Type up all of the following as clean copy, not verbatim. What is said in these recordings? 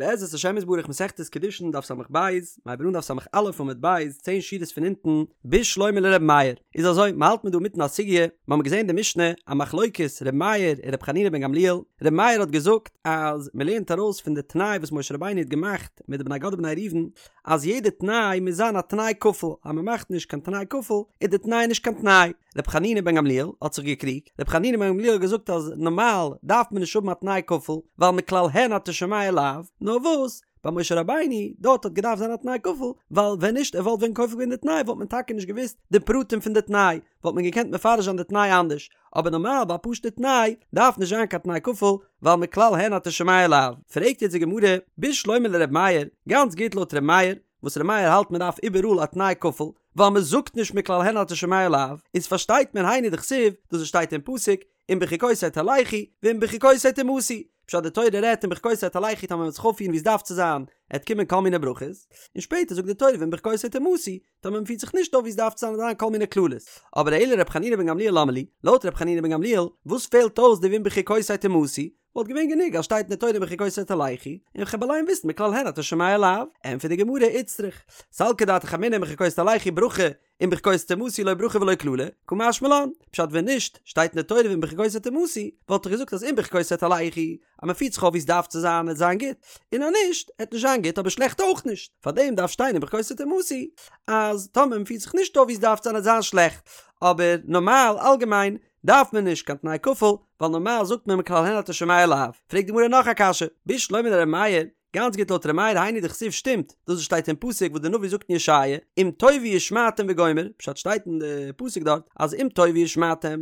בעזרת השם יתברך מסכת קידושין דף ס"ב, מ'הייבט אן דף ס"א עמוד ב', צען שורות פון אונטן, בשלמא לר' מאיר, איז אזוי, מ'האלט מיר דא מיטן א סוגיא, מ'האמיר געזען די משנה, א מחלוקת ר' מאיר און ר' חנינא בן גמליאל, ר' מאיר האט געזאגט אז מ'לערנט ארויס פון די תנאי וואס משה רבינו האט געמאכט מיט די בני גד ובני ראובן, אז יעדע תנאי מוז זיין א תנאי כפול, אז מ'מאכט נישט קיין תנאי כפול איז די תנאי נישט קיין תנאי. ר' חנינא בן גמליאל האט זיך געקריגט, ר' חנינא בן גמליאל האט געזאגט אז נארמאל דארף מען נישט האבן א תנאי כפול, ווייל מכלל הן אתה שומע לאו, נאר וואס, ביי משה רבינו, דארט האט געדארפט זיין א תנאי כפול, ווייל ווען נישט ער וואלט ווען כופל געווען די תנאי וואלט מען טאקע נישט געוואוסט די פרטים פון די תנאי, וואלט מען געקענט מפרש זיין די תנאי אנדערש, אבער נארמאל ביי א פשוטע תנאי דארף נישט זיין קיין תנאי כפול, ווייל מכלל הן אתה שומע לאו. פרעגט יעצט די גמרא, בשלמא לר' מאיר, גאנץ גוט לויט ר' מאיר, וואס ר' מאיר האלט מען דארף איבעראל א תנאי כפול, ווייל מען זאגט נישט מכלל הן אתה שומע לאו, איז פארשטייט מען היינו דכתיב, דאס וואס שטייט אין פסוק, אם בחוקותי תלכו, ואם בחוקותי תמאסו, פשט די תורה רעדט אם בחוקותי תלכו טאמער מען וועט זיך אויפפירן ווי עס דארף צו זיין, עט קומען כל מיני ברכות, און שפעטער זאגט די תורה ואם בחוקותי תמאסו, טאמער מען פירט זיך נישט אויף ווי עס דארף צו זיין וועט זיין כל מיני קללות. אבער אלא ר' חנינא בן גמליאל למה לי, לויט ר' חנינא בן גמליאל, וואס פעלט אויס די ואם בחוקותי תמאסו, וואלט געווען גענוג אז שטייט אין די תורה אם בחוקותי תלכו, און כ'העב אליין וויסן מכלל הן אתה שומע לאו, ענטפערט די גמרא איצטריך, סלקא דעתך אמינא אם בחוקותי תלכו ברכה, אם בחוקותי תמאסו לא ברכה ולא קללה, קא משמע לן, פשט ווען נישט שטייט אין די תורה ואם בחוקותי תמאסו, וואלט איך געזאגט אז אם בחוקותי תלכו, אז מען פירט זיך אויף ווי עס דארף צו זיין עט זיין גוט, און אז נישט עט נישט זיין גוט אבער שלעכט אויך נישט, פארדעם דארף שטיין אם בחוקותי תמאסו אז טאמער מען פירט זיך נישט אויף ווי עס דארף צו זיין עט זיין שלעכט, אבער נארמאל אלגעמיין דארף מען נישט קיין תנאי כפול, ווייל נארמאל זאגט מען מכלל הן אתה שומע לאו. פרעגט די גמרא נאך א קשיא, בשלמא לר' מאיר, גאנץ גוט לויט ר' מאיר היינו דכתיב שטימט דאס וואס שטייט אין פסוק וואס די נביא זאגט אין ישעיה אם תאבו ושמעתם וגומר, פשט שטייט אין די פסוק דארט אז אם תאבו ושמעתם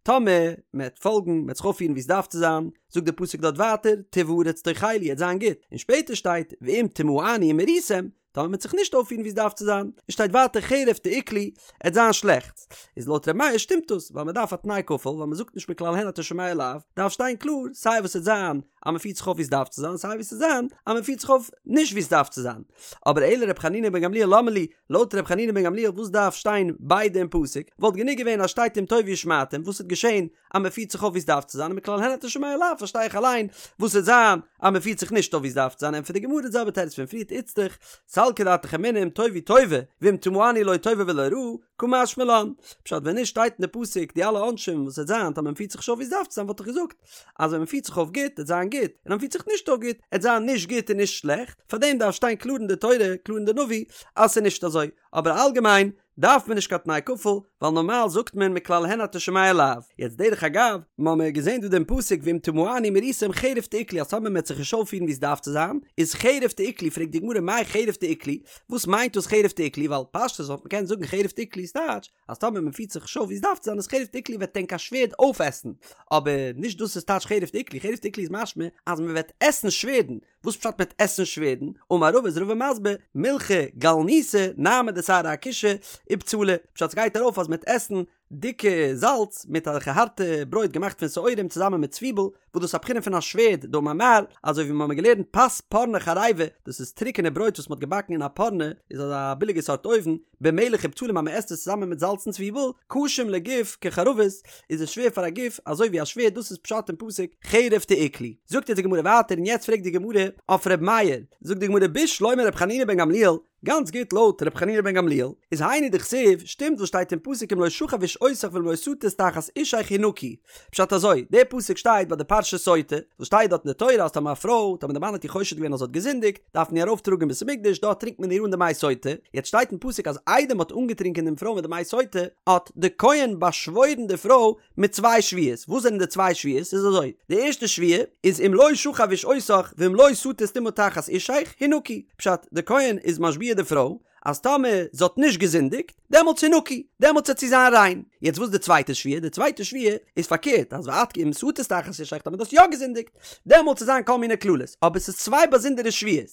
טאמער מען וועט פאלגן מען וועט זיך אויפפירן ווי עס דארף צו זיין, זאגט די פסוק דארט ווייטער טוב הארץ תאכלו עט זיין גוט, און שפעטער שטייט ואם תמאנו ומריתם טאמער מ'וועט זיך נישט אויפפירן ווי עס דארף צו זיין, און שטייט ווייטער חרב תאכלו, עט זיין שלעכט. איז לויט ר' מאיר שטימט דאס, ווייל מ'דארף א תנאי כפול, ווייל מ'זאגט נישט מכלל הן אתה שומע לאו, דארף שטיין קלאר סיי וואס עט זיין אז מ'פירט זיך אויף ווי עס דארף צו זיין, סיי וואס עט זיין אז מ'פירט זיך אויף נישט ווי עס דארף צו זיין. אבער אלא ר' חנינא בן גמליאל למה לי, לויט ר' חנינא בן גמליאל וואס דארף שטיין ביידע אין פסוק, וואלט גענוג געווען אז שטייט אם תאבו ושמעתם, וואס עט געשען אז מען פירט זיך אויף ווי עס דארף צו זיין און מכלל הן אתה שומע לאו פארשטיי איך אליין וואס עט זיין אז מען פירט זיך נישט אויף ווי עס דארף צו זיין ענטפערט די גמרא די זעלבע תירוץ פון פריערט איצטריך סלקא דעתך אמינא אם תאבו טובה ואם תמאנו לא טובה ולא רעה קא משמע לן פשט ווען נישט שטייט אין די פסוק די אלע עונשים וואס עט זיין טאמער מען פירט זיך נישט אויף ווי עס דארף צו זיין וואלט איך געזאגט אז ווען מען פירט זיך אויף גוט עט זיין גוט און אז מען פירט זיך נישט אויף גוט עט זיין נישט גוט און נישט שלעכט פארדעם דארף שטיין קלאר אין די תורה קלאר אין די נביא אז ס'איז נישט אזוי אבער אלגעמיין דארף מען נישט קיין תנאי כפול, ווייל נארמאל זאגט מען מכלל הן אתה שומע לאו. יעצט דרך אגב, מ'האמיר געזען דא דעם פסוק ואם תמאנו ומריתם חרב תאכלו אז טאמער מ'עט זיך נישט אויפפירן ווי עס דארף צו זיין, איז חרב תאכלו, פרעגט די גמרא מאי חרב תאכלו, וואס מיינט דאס חרב תאכלו, ווייל פשטות וואלט מען קענען זאגן חרב תאכלו איז טייטש אז טאמער מ'פירט זיך נישט אויף ווי עס דארף צו זיין איז חרב תאכלו וועט ענק א שווערד אויפעסן, אבער נישט דאס איז טייטש חרב תאכלו, חרב תאכלו איז משמע אז מ'וועט עסן שווערדן, וואס פשט מ'עט עסן שווערדן? אמר רבא איז רבא מסביר, מילחא גלניתא, נהמא דשערי אכושא, ובצלא, פשט ס'גייט ארויף אז מ'עט עסן דיקע זאלץ מיט אזעלכע הארטע ברויט געמאכט פון שעורים צוזאמען מיט צוויבל, וואס דאס איז א בחינה פון א שווערד, דאמר מר, אזוי ווי מ'האמיר געלערנט פת פורני חריבה, דאס איז טרוקענע ברויט וואס מ'האט געבאקן אין א פורני, איז אזא ביליגע סארט אויוון, במלח ובצלים אז מ'עסט עס צוזאמען מיט זאלץ און צוויבל, קשים לגוף כחרבות, איז עס שווער פאר א גוף אזוי ווי א שווערד דאס איז פשט אין פסוק חרב תאכלו. זאגט יעצט די גמרא ווייטער און יעצט פרעגט די גמרא אויף ר' מאיר, זאגט די גמרא בשלמא ר' חנינא בן גמליאל, גאנץ גוט לויט ר' חנינא בן גמליאל איז היינו דכתיב, שטימט וואס שטייט אין פסוק אם לא שכב איש אותך ואם לא שטית תחת אישך הנקי, פשט אזוי, דער פסוק שטייט ביי די פרשת סוטה, וואס שטייט דארט אין די תורה אז טאמער א פרוי, טאמער די מאן האט איר חושד געווען אז זי האט געזינדיגט, דארף מען איר ארויפטראגן אין בית המקדש, דארט טרינקט מען איר אן די מי סוטה, יעצט שטייט אין פסוק אז איידער מען האט אנגעטרינקען דעם פרוי מיט די מי סוטה, האט די כהן באשוואוירן די פרוי מיט צוויי שבועות, וואס זענען די צוויי שבועות? איז אזוי, די ערשטע שבועה איז אם לא שכב איש אותך ואם לא שטית טומאה תחת אישך, הנקי, פשט, די כהן איז משביע די פרוי, אז טאמער זי האט נישט געזינדיגט, דעמאלטס הנקי, דעמאלטס וועט זי זיין ריין. יעצט וואס איז די צווייטע שבועה? די צווייטע שבועה איז פארקערט, אז ואת כי אם שטית תחת אישך, טאמער דו האסט יא געזינדיגט, דעמאלטס וועט זיין כל מיני קללות. אבער ס'איז צוויי באזונדערע שבועות.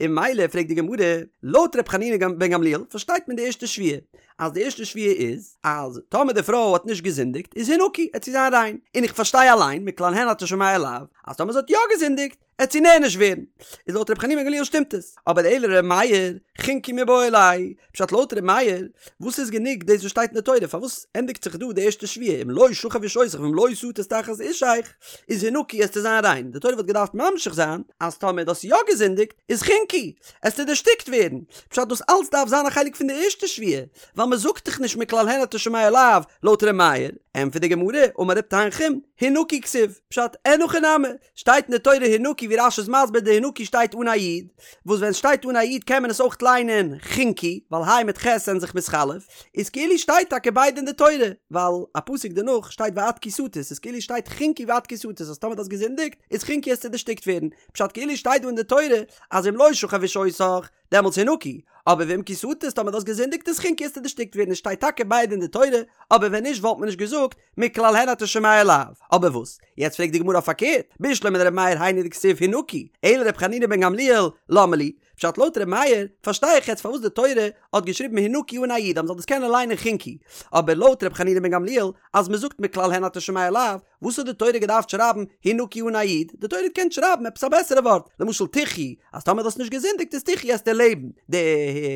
און ממילא פרעגט די גמרא, לויט ר' חנינא בן גמליאל פארשטייט מען די ערשטע שבועה, אז די ערשטע שבועה איז אז טאמער די פרוי האט נישט געזינדיגט איז הנקי עט זי זיין ריין, און איך פארשטיי אליין מכלל הן אתה שומע לאו אז טאמער זי האט יא געזינדיגט עט זי נענש ווערן, איז לויט ר' חנינא בן גמליאל שטימט עס, אבער אלא לר' מאיר, חנקי מיבעי ליה, פשט לויט ר' מאיר, וואס איז גענוג דאס וואס שטייט אין די תורה, פארוואס ענדיגט זיך דא די ערשטע שבועה אם לא שכב איש אותך ואם לא שטית תחת אישך, איז הנקי עסטו זיין ריין, די תורה וואלט געדארפט ממשיך זיין אז טאמער דו האסט יא געזינדיגט איז חנקי, עסטו דערשטיקט ווערן, פשט דאס אלץ דארף זיין א חלק פון די ערשטע שבועה, ווייל מען זאגט דאך נישט מכלל הן אתה שומע לאו, לויט ר' מאיר, ענטפערט די גמרא, אמר ר' תנחום, הנקי כתיב, פשט, אין הכי נמי, שטייט אין די תורה הנקי ווי רש"י איז מסביר די הנקי שטייט אן א יוד, וואס ווען סשטייט אן א יוד קען מען עס אויך ליינען חנקי, ווייל היי מיט חית זענען זיך מתחלף, איז כאילו שטייט טאקע ביידע אין די תורה, ווייל א פסוק דערנאך שטייט ואת כי שטית, איז כאילו שטייט חנקי ואת כי שטית אז טאמער דו האסט געזינדיגט איז חנקי עסטו דערשטיקט ווערן, פשט כאילו שטייט דא אין די תורה אז אם לא שכב איש אותך דעמאלטס הנקי, אבער ואם כי שטית טאמער דו האסט געזינדיגט איז חנקי עסטו דערשטיקט ווערן עס שטייט טאקע ביידע אין די תורה, אבער ווען נישט וואלט מען נישט געזאגט מכלל הן אתה שומע לאו. אבער וואס? יעצט פרעגט די גמרא אויף פארקערט, בשלמא לר' מאיר היינו דכתיב הנקי, אלא לר' חנינא בן גמליאל, למה לי? פשט לויט ר' מאיר, פארשטיי איך יעצט פארוואס די תורה האט געשריבן הנקי אן א יוד אז מ'זאל דאס קענען ליינען חנקי. אבער לויט ר' חנינא בן גמליאל, אז מ'זאגט מכלל הן אתה שומע לאו, וואס האט די תורה געדארפט שרייבן הנקי אן א יוד? די תורה האט געקענט שרייבן עפעס א בעסערע ווארט, למשל תחי, אז טאמער דו האסט נישט געזינדיגט איז תחי עסטו לעבן. די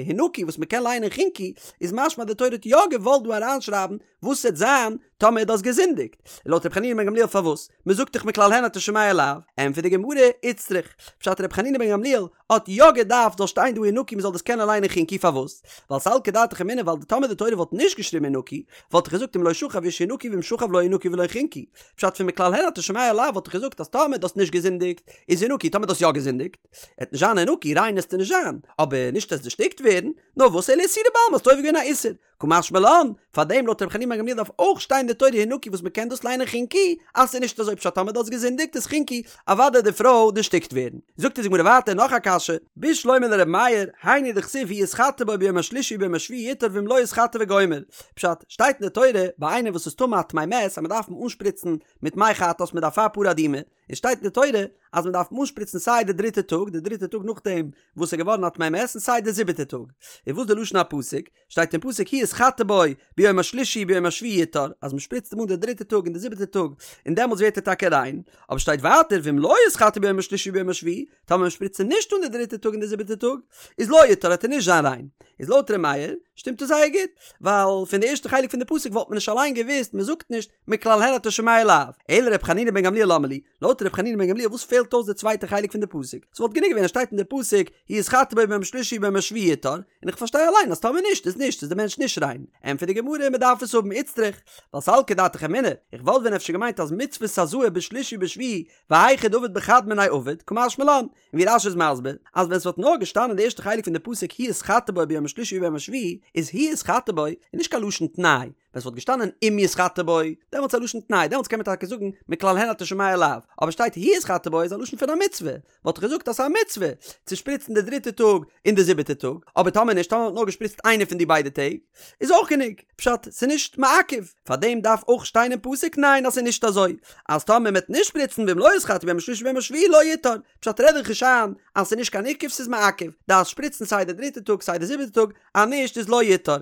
הנקי וואס מ'קען ליינען חנקי, איז משמע אז די תורה האט יא געוואלט דא אריינשרייבן וואס וועט זיין טאמער דו האסט געזינדיגט? לויט ר' חנינא בן גמליאל פארוואס? מען זאגט דאך מכלל הן אתה שומע לאו. ענטפערט די גמרא, איצטריך. פשט ר' חנינא בן גמליאל האט יא געדארפט זאל שטיין דא הנקי מען זאל דאס קענען ליינען חנקי פארוואס? ווייל סלקא דעתך אמינא ווייל טאמער די תורה וואלט נישט געשריבן הנקי וואלט איך געזאגט אם לא שכב איש הנקי ואם שכב לא הנקי ולא חנקי. פשט פון מכלל הן אתה שומע לאו וואלט איך געזאגט אז טאמער דו האסט נישט געזינדיגט איז הנקי טאמער דו האסט יא געזינדיגט עט נישט זיין הנקי ריין עסטו נישט זיין אבער נישט עסט דערשטיקט ווערן נאר וואס אלא איסורא בעלמא האסט עובר געווען א איסור קא משמע לן, פאר דעם לויט רבי חנינא בן גמליאל דארף אויך שטיין די תורה הנקי וואס מ'קען דאס ליינען חנקי, אז ס'איז נישט אזוי פשט טאמער דו האסט געזינדיגט איז חנקי, אוודאי די פרוי דערשטיקט ווערן. זאגט אונז די גמרא ווייטער נאך א קשיא, בשלמא לר' מאיר, היינו דכתיב הוא יתחטא בו ביום השלישי וביום השביעי יטהר ואם לא יתחטא וגומר. פשט, שטייט אין די תורה ביי איינער וואס איז טמא א טמא מת אז מ'דארף אים אנשפריצן מיט מי חטאת מיט אפר פרה אדומה, און שטייט אין די תורה אז מ'דארף אים אנשפריצן סיי די דריטע טאג, די דריטע טאג נאכדעם וואס איז געווארן א טמא מת און סיי די זיבעטע טאג. און וואס די לשון הפסוק? שטייט אין פסוק הוא יתחטא בו ביום השלישי וביום השביעי יטהר, אז מען שפריצט אים אן די דריטע טאג און די זיבעטע טאג, און דעמאלטס ווערט ער טאקע ריין. אבער שטייט ווייטער ואם לא יתחטא ביום השלישי וביום השביעי, טאמער מען שפריצט אים נישט אן די דריטע טאג און די זיבעטע טאג, איז לא יטהר וועט ער נישט זיין ריין. איז לויט ר' מאיר שטימט עס זייער גוט, ווייל פון די ערשטע חלק פון די פסוק וואלט מען נישט אליין געוואוסט, מען זאגט נישט מכלל הן אתה שומע לאו, אלא ר' חנינא בן גמליאל למה לי, לויט ר' חנינא בן גמליאל וואס פעלט אויס די צווייטע חלק פון די פסוק? ס'וואלט גענוג געווען אז שטייט אין די פסוק הוא יתחטא בו ביום השלישי וביום השביעי יטהר, און איך פארשטיי אליין אז טאמער נישט איז נישט איז די מענטש נישט ריין. ענטפערט די גמרא מ'דארף עס האבן איצטריך, ווייל סלקא דעתך אמינא, איך וואלט ווען אפשר געמיינט אז מצות הזאה בשלישי ובשביעי והיכא דעביד בחד מינייהו עביד, קא משמע לן, און ווי רש"י איז מסביר, אז ווען ס'וואלט נאר געשטאנען די ערשטע חלק פון די פסוק הוא יתחטא בו ביום השלישי וביום השביעי, איז הוא יתחטא בו איז נישט קיין לשון תנאי, ווען ס'וואלט געשטאנען אם יתחטא בו, דעמאלטס איז א לשון תנאי, דעמאלטס קען מען טאקע זאגן מכלל הן אתה שומע לאו, אבער שטייט הוא יתחטא בו איז א לשון פון א מצוה, וואלט איך געזאגט אז ס'איז א מצוה צו שפריצן די דריטע טאג און די זיבעטע טאג, אבער טאמער נישט, טאמער מ'האט נאר געשפריצט איינע פון די ביידע טעג, איז אויך גענוג, פשט, ס'איז נישט מעכב, פארדעם דארף אויך שטיין אין פסוק ניין אז ס'איז נישט אזוי, אז טאמער מ'וועט נישט שפריצן ואם לא יתחטא ביום השלישי וביום השביעי לא יטהר, פשט רעד דיך נישט איין אז ס'איז נישט קיין עיכוב ס'איז מעכב, דארפסט שפריצן סיי די דריטע טאג סיי די זיבעטע טאג, אז נישט איז לא יטהר.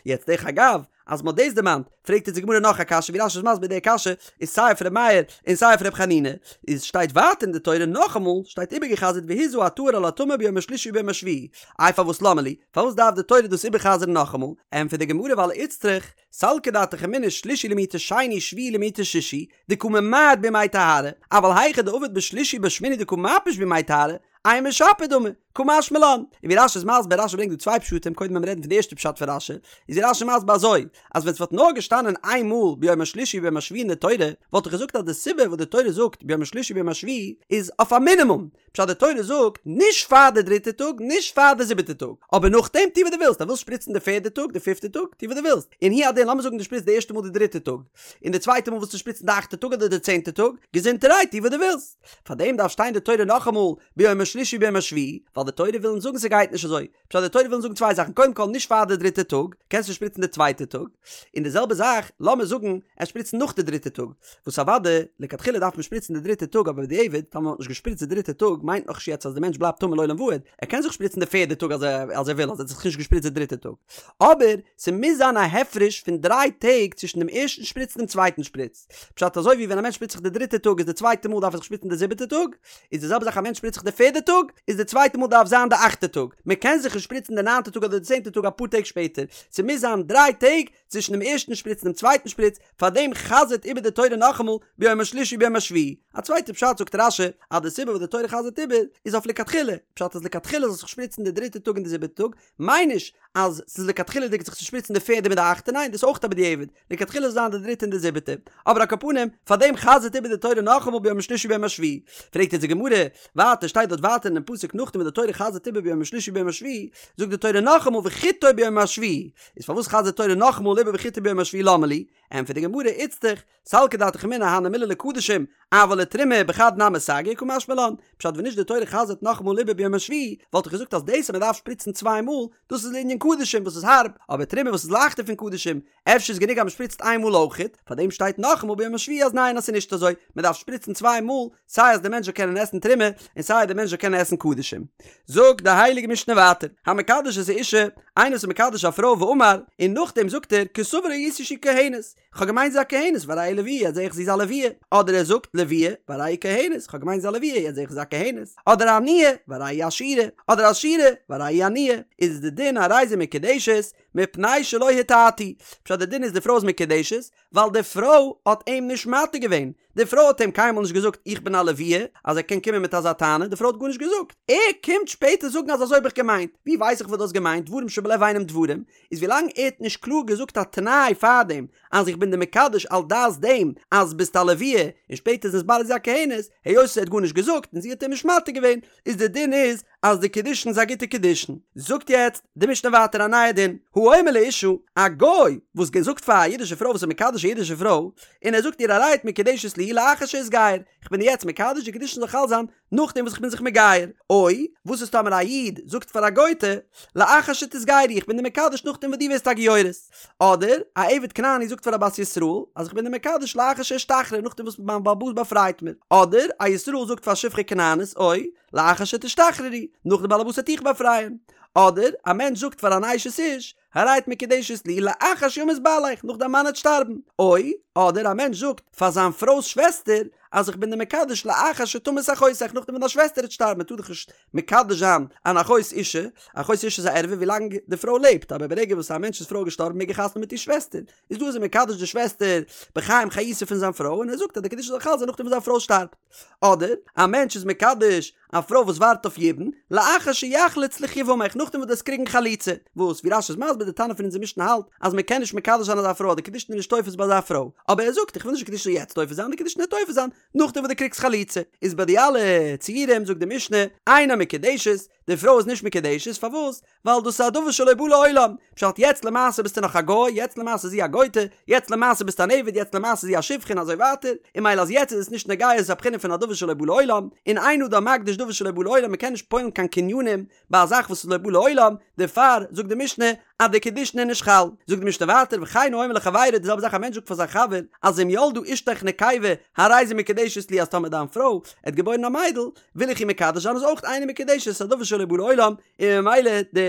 יעצט דרך אגב, אז מ'האט דאס דערמאנט, פרעגט אונז די גמרא נאך א קשיא, ווי רש"י איז מסביר די קשיא איז סיי אויף ר' מאיר און סיי אויף ר' חנינא, איז שטייט ווייטער אין די תורה נאכאמאל, שטייט איבערגע'חזר'ט והזה הטהור על הטמא ביום השלישי וביום השביעי, איי פארוואס למה לי, פארוואס דארף די תורה דאס איבער'חזר'ן נאכאמאל? ענטפערט די גמרא ווייל איצטריך, סלקא דעתך אמינא שלישי למעוטי שני שביעי למעוטי שישי, דקא ממעט בימי טהרה, אבל היכא דעביד בשלישי ובשמיני דקא מפיש בימי טהרה, אימא שפיר דמי, קא משמע לן. און ווי רש"י איז מסביר, רש"י ברענגט דא צוויי פשטים, קודם וועלן מיר רעדן פון די ערשטע פשט פון רש"י, איז ווי רש"י מסביר אזוי, אז ווען ס'וואלט נאר געשטאנען איין מאל ביום השלישי וביום השביעי אין די תורה, וואלט איך געזאגט אז די סיבה וואס די תורה זאגט ביום השלישי וביום השביעי איז אויף א מינימום, פשט די תורה זאגט נישט פאר די דריטע טאג נישט פאר די זיבעטע טאג, אבער נאכדעם טו וואס דו ווילסט, אז ווילסט שפריצן די פערדע טאג די פיפטע טאג טו וואס דו ווילסט, און הוא הדין לאמיר זאגן דו שפריצט די ערשטע מאל די דריטע טאג, און די צווייטע מאל ווילסטו שפריצן די אכטע טאג אדער די צענטע טאג, געזונטערהייט טו וואס דו ווילסט. פארדעם דארף שטיין די תורה נאכאמאל ביום השלישי וביום השביעי, ווייל ווייל די תורה וויל אונז זאגן ס'גייט נישט אזוי, פשט די תורה וויל אונז זאגן צוויי זאכן, קודם כל נישט פאר די דריטע טאג, קענסט נישט שפריצן די צווייטע טאג, און די זעלבע זאך לאמיר זאגן ער שפריצט נאך די דריטע טאג, וואס אוודאי לכתחילה דארף מען שפריצן די דריטע טאג אבער בדיעבד טאמער מ'האט נישט געשפריצט די דריטע טאג מיינט נאך נישט יעצט אז די מענטש בלייבט טמא לעולם ועד, ער קען זיך שפריצן די פערדע טאג אז ער אז ער וויל אז ער האט זיך נישט געשפריצט די דריטע טאג, אבער ס'מוז זיין א הפרש פון דריי טעג צווישן דעם ערשטן שפריץ און דעם צווייטן שפריץ, פשט אזוי ווי ווען א מענטש שפריצט זיך די דריטע טאג איז די צווייטע מאל דארף ער זיך שפריצן די זיבעטע טאג, איז די זעלבע זאך א מענטש שפריצט זיך די פערדע טאג איז די צווייטע מאל דארף זיין די אכטע טאג, מען קען זיך נישט שפריצן די ניינטע טאג אדער די צענטע טאג אפאר טעג שפעטער, ס'מוז זיין דריי טעג צווישן דעם ערשטן שפריץ און דעם צווייטן שפריץ, פארדעם חזר'ט איבער די תורה נאכאמאל ביום השלישי וביום השביעי. א צווייטע פשט זאגט רש"י אז די סיבה וואס די תורה חזר'ט איבער איז אויף לכתחילה, פשט אז לכתחילה זאל זיך שפריצן די דריטע טאג און די זיבעטע טאג, מיין נישט אז ס'איז לכתחילה'דיג זיך צו שפריצן די פערדע מיט די אכטע, ניין דאס איז אויך א בדיעבד, לכתחילה זאל זיין די דריטע און די זיבעטע, אבער על כל פנים, פאר דעם חזר'ט איבער די תורה נאכאמאל ביום השלישי וביום השביעי. פרעגט אונז די גמרא, ווייטער שטייט דארט ווייטער אינעם פסוק נאכדעם וואס די תורה חזר'ט איבער ביום השלישי וביום השביעי, זאגט די תורה נאכאמאל וחיטו ביום השביעי, איז פארוואס חזר'ט די תורה נאכאמאל איבער וחיטו ביום השביעי למה לי? ענטפערט די גמרא, איצטריך, סלקא דעתך אמינא הני מילי לקדשים, אבל לתרומה בחד נמי סגי קא משמע לן, פשט ווען נישט די תורה חזר'ט נאכאמאל איבער ביום השביעי, וואלט איך געזאגט אז דאס אז מען דארף שפריצן צוויי מאל, דאס איז לענין קדשים וואס איז הארב, אבער תרומה וואס איז לייכטער פון קדשים, אפשר איז גענוג אז מען שפריצט איין מאל אויכעט, פארדעם שטייט נאכאמאל ביום השביעי אז ניין אז ס'איז נישט אזוי, מען דארף שפריצן צוויי מאל, סיי אז די מענטש זאל קענען עסן תרומה, און סיי אז די מענטש זאל קענען עסן קדשים. זאגט די הייליגע משנה ווייטער, המקדש את האשה, איינער וואס איז מקדש א פרוי ואמר, און נאכדעם זאגט ער, כסבור הייתי שהיא כהנת, כ'האב געמיינט זי איז א כהנת והרי היא לוויה יעצט זעה איך זי איז א לוויה, אדער ער זאגט לוויה והרי היא כהנת, כ'האב געמיינט זי איז א לוויה יעצט זעה איך זי איז א כהנת, אדער עניה והרי היא עשירה, אדער עשירה והרי היא עניה, איז די דין הרי זו מקודשת מפני שלא הטעתו, פשט די דין איז די פרוי איז מקודשת ווייל די פרוי האט אים נישט מטעה געווען, די פרוי האט אים קיינמאל נישט געזאגט איך בין א לוויה אז ער קען קומען מיט אזא טענה, די פרוי האט גארנישט געזאגט, ער קומט שפעטער זאגן אז אזוי האב איך געמיינט, ווי ווייס איך וואס דו האסט געמיינט, דברים שבלב אינם דברים, איז ווילאנג ער האט נישט קלאר געזאגט א תנאי פארדעם אז איך בין דיר מקדש על דעת דעם אז ביסט א לוויה און שפעטער איז נתברר זי איז א כהנת, היות ער האט גארנישט געזאגט און זי האט אים נישט מטעה געווען, איז די דין איז אז די קידושין איז א גוטע קידושין. זאגט יעצט די משנה ווייטער א נייע דין, האומר לאשה, א גוי וואס זאגט פאר א אידישע פרוי וואס איז מקדש א אידישע פרוי, און ער זאגט איר הרי את מקודשת לי לאחר שאתגייר, איך בין דיר יעצט מקדש די קידושין זאל חל זיין נאכדעם וואס איך בין זיך מגייר, או, וואס איז טאמער א איד זאגט פאר א גוי'טע, לאחר שתתגיירי, איך בין דיר מקדש נאכדעם וואס דו ווערסט א גיורת. אדער, א עבד כנעני זאגט פאר א בת ישראל, אז איך בין דיר מקדש לאחר שאשתחרר, נאכדעם וואס מיין בעל הבית באפרייט מיר. אדער, א ישראל זאגט פאר א שפחה כנענית, או, לאחר שתשתחררי, נאך די בעל הבית וועט דיך באפרייען. אדער, א מענטש זאגט פאר אן אשת איש, הרי את מקודשת לי לאחר שימות בעליך, נאך דיין מאן וועט שטארבן. או, אדער א מענטש זאגט פאר זיין פרוי'ס שוועסטער, אז איך בין דיר מקדש לאחר שתמות אחותך, נאכדעם ווען דיין שוועסטער וועט שטארבן, מען טאר דאך נישט מקדש זיין אן אחות אישה, אחות אישה איז א ערווה ווילאנג די פרוי לעבט, אבער ברגע וואס א מענטש'ס פרוי איז געשטארבן מעג ער חתונה מיט איר שוועסטער, איז דא איז ער מקדש די שוועסטער בחיים חיותה פון זיין פרוי, און ער זאגט אז די קידושין זאל חל זיין נאכדעם וואס זיין פרוי שטארבט. אדער, א מענטש איז מקדש א פרוי וואס ווארט אויף יבום, לאחר שיחלוץ לך יבמך, נאכדעם וואס דו וועסט קריגן חליצה, וואס, ווי רש"י איז מסביר, די תנא פון אונזער משנה האלט, אז מען קען נישט מקדש זיין אזא פרוי אז די קידושין איז נישט תופס ביי אזא פרוי, אבער ער זאגט, איך וויל נישט די קידושין זאל יעצט תופס זיין, די קידושין וועט תופס זיין נאכדעם וואס דו קריגסט חליצה. איז ביי די אלע ציורים זאגט די משנה, אינה מקודשת, די פרוי איז נישט מקודשת, פארוואס? ווייל דאס איז א דבר שלא בא לעולם, פשט יעצט למעשה ביסטו נאך א גוי, יעצט למעשה איז זי א גוי'טע, יעצט למעשה ביסטו אן עבד, יעצט למעשה איז זי א שפחה און אזוי ווייטער, און ממילא אז יעצט איז עס נישט נוגע איז עס א בחינה פון א דבר שלא בא לעולם, און אין אדם מקדיש דבר שלא בא לעולם, מ'קען נישט פועל'ן קיין קנינים ביי א זאך וואס איז לא בא לעולם, דערפאר זאגט די משנה אז די קידושין איז נישט חל. זאגט די משנה ווייטער וכן האומר לחבירו די זעלבע זאך א מענטש זאגט פאר זיין חבר אז אם ילדה אשתך נקבה הרי זו מקודשת לי אז טאמער דיין פרוי עט געבוירן א מיידל וויל איך איר מקדש זיין איז אויך אינה מקודשת ס'איז א דבר שלא בא לעולם און ממילא די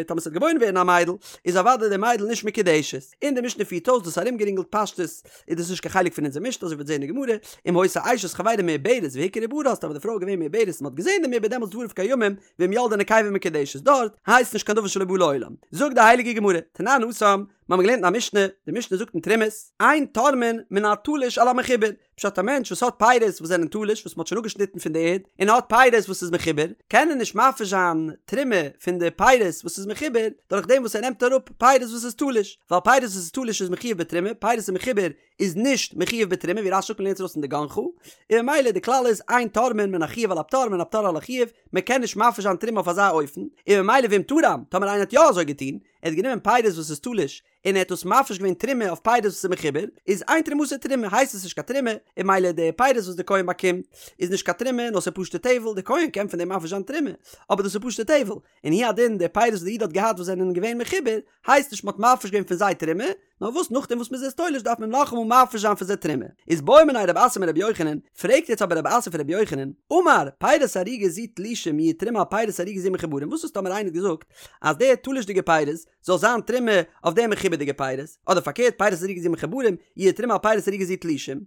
טאמער ס'וועט געבוירן ווערן א מיידל איז אוודאי די מיידל נישט מקודשת. און די משנה פירט אויס דאס ארומגערינגלט פשטות איז דאס נישט קיין חלק פון אונזער משנה אזוי ווי מ'וועט זעהן אין גמרא אם היתה אשת חברו מעוברת והוכר עוברה אז טאמער די פרוי איז געווען מעוברת און מ'האט געזעהן דעם עובר דעמאלטס דבריו קיימים ואם ילדה נקבה מקודשת דארט הייסט נישט קיין דבר שלא בא לעולם. זאגט די הייליגע גמרא תנן התם מ'האמיר געלערנט אין א משנה די משנה זאגט אין תרומות אין תורמין מן התלוש על המחובר פשט א מענטש וואס האט פירות וואס זענען תלוש וואס מ'האט שוין אפגעשניטן פון די ערד, און ער האט פירות וואס איז מחובר, קען ער נישט מפריש זיין תרומה פון די פירות וואס איז מחובר, דורך דעם וואס ער נעמט אראפ פירות וואס איז תלוש, ווייל פירות וואס איז תלוש איז מחויב בתרומה, פירות איז מחובר איז נישט מחויב בתרומה, ווי רש"י זאגט מ'לערנט עס ארויס פון דגנך, און ממילא די כלל איז אין תורמין מן החיוב על הפטור ומן הפטור על החיוב, מ'קען נישט מפריש זיין תרומה אויף אזא אופן, און ממילא ואם תרם, טאמער איינער האט יא אזוי געטון, ער האט גענומען פירות וואס איז תלוש, און ער האט דאס מפריש געווען תרומה אויף פירות וואס איז מחובר, איז אין תרומתו תרומה, הייסט עס נישט קיין תרומה, און ממילא די פירות וואס די כהן באקומט איז נישט קיין תרומה נאר ס'איז פשוטע טבל, די כהן קען פון דעם מפריש זיין תרומה, אבער דאס איז פשוטע טבל, און הוא הדין די פירות וואס די איד האט געהאט וואס זענען געווען מחובר, הייסט נישט מ'האט מפריש געווען פון זיי תרומה, נאר וואס נאכדעם וואס מ'איז עס תולש דארף מען נאכאמאל מפריש זיין פון זיי תרומה. איז בעא מיניה רב אסי מרבי יוחנן, פרעגט יעצט אבער רב אסי פון רבי יוחנן, אמר, פירות ערוגה זו תלושים יהו תרומה על פירות ערוגה זו מחוברים, וואס איז טאמער איינער האט געזאגט אז די תלוש'דיגע פירות זאל זיין תרומה אויף די מחובר'דיגע פירות, אדער פארקערט פירות ערוגה זו מחוברים יהו תרומה על פירות ערוגה זו תלושים,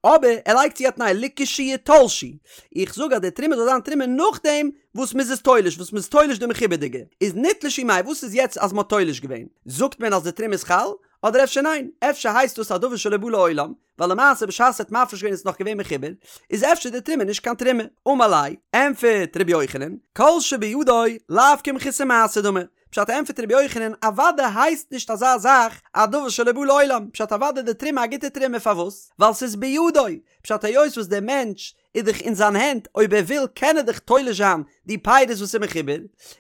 אבער ער לייגט צו א תנאי לכשיתלשו, איך זאג אז די תרומה זאל זיין תרומה נאכדעם וואס מ'איז עס תולש, וואס מ'איז תולש די מחובר'דיגע, איז נתלשו מאי, וואס איז יעצט אז מ'האט תולש געווען? זאגט מען אז די תרומה איז חל? אדער אפשר ניין? אפשר הייסט דאס א דבר שלא בא לעולם, ווייל למעשה בשעת ער האט מפריש געווען איז עס נאך געווען מחובר, איז אפשר די תרומה נישט קיין תרומה? אמר ליה, ענפערט ר' יוחנן, כל שבידו לאו כמחוסר מעשה דמי, פשט ענפערט ר' יוחנן, אוודאי הייסט נישט אזא זאך א דבר שלא בא לעולם, פשט אוודאי די תרומה א גוטע תרומה פארוואס? ווייל ס'איז בידו, פשט היות וואס דער מענטש איז דאך אין זיין הענט, אויב ער וויל קען ער דאך תולש זיין די פירות וואס איז מחובר,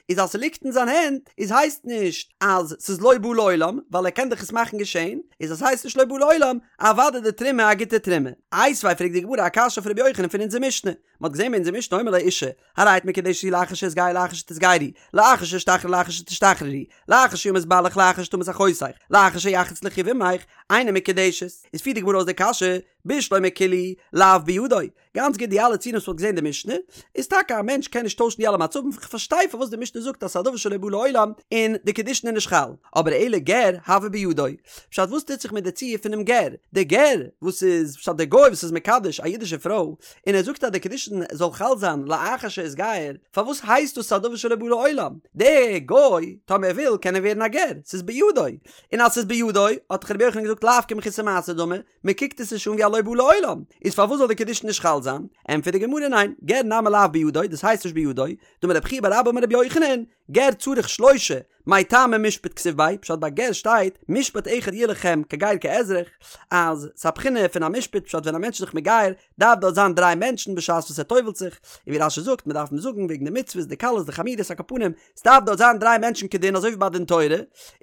איז אז ס'ליגט אין זיין הענט איז הייסט נישט אז ס'איז לא בא לעולם, ווייל ער קען דאך עס מאכן געשען, איז אז ס'הייסט נישט לא בא לעולם, אוודאי די תרומה א גוטע תרומה. איתיביה פרעגט די גמרא א קשיא אויף רבי יוחנן פון אונזער משנה, מ'האט געזען ביי אונזער משנה האומר לאשה, הרי את מקודשת לי לאחר שאתגייר לאחר שתתגיירי, לאחר שאשתחרר לאחר שתשתחררי, לאחר שימות בעלך לאחר שתמות אחותך, לאחר שיחלוץ לך יבמך, אינה מקודשת. איז פירט די גמרא אויס די קשיא, בשלמא כולהו לאו בידו, גאנץ גוט די אלע ציורים וואס מ'האט געזען אין די משנה, איז טאקע א מענטש קען נישט טוישן די אלע מצבים, כ'פארשטיי פארוואס די משנה זאגט אז ס'איז א דבר שלא בא לעולם און די קידושין איז נישט חל, אבער אלא גר הוי בידו, פשט וואס טוט זיך מיט די ציור פונעם גר, די גר וואס איז פשט די גוי וואס איז מקדש א אידישע פרוי און ער זאגט אז די קידושין זאל חל זיין לאחר שאתגייר, פארוואס הייסט דאס א דבר שלא בא לעולם, די גוי טאמער ער וויל קען ער ווערן א גר, ס'איז בידו, און אז ס'איז בידו האט דאך רבי יוחנן געזאגט לאו כמחוסר מעשה דמי, מען קוקט עס נישט אן ווי א לא בא לעולם, איז פארוואס זאל די קידושין נישט חל זיין? ענטפערט די גמרא ניין, גר נמי לאו בידו, דאס הייסט נישט בידו, דאמר רב חייא בר אבא אמר רבי יוחנן, גר צריך שלושה, מאי טעמא משפט כתיב ביה, פשט ביי גר שטייט, משפט אחד יהיה לכם כגר כאזרח, אז ס'איז א בחינה פון א משפט פשט ווען א מענטש איז זיך מגייר דארף דארט זיין דריי מענטשן בשעת וואס ער טובל'ט זיך, און ווי רש"י זאגט מען דארף אים זאגן וועגן די מצוות די קלות די חמורות על כל פנים ס'דארף דארט זיין דריי מענטשן כדין אזוי ווי ביי דין תורה,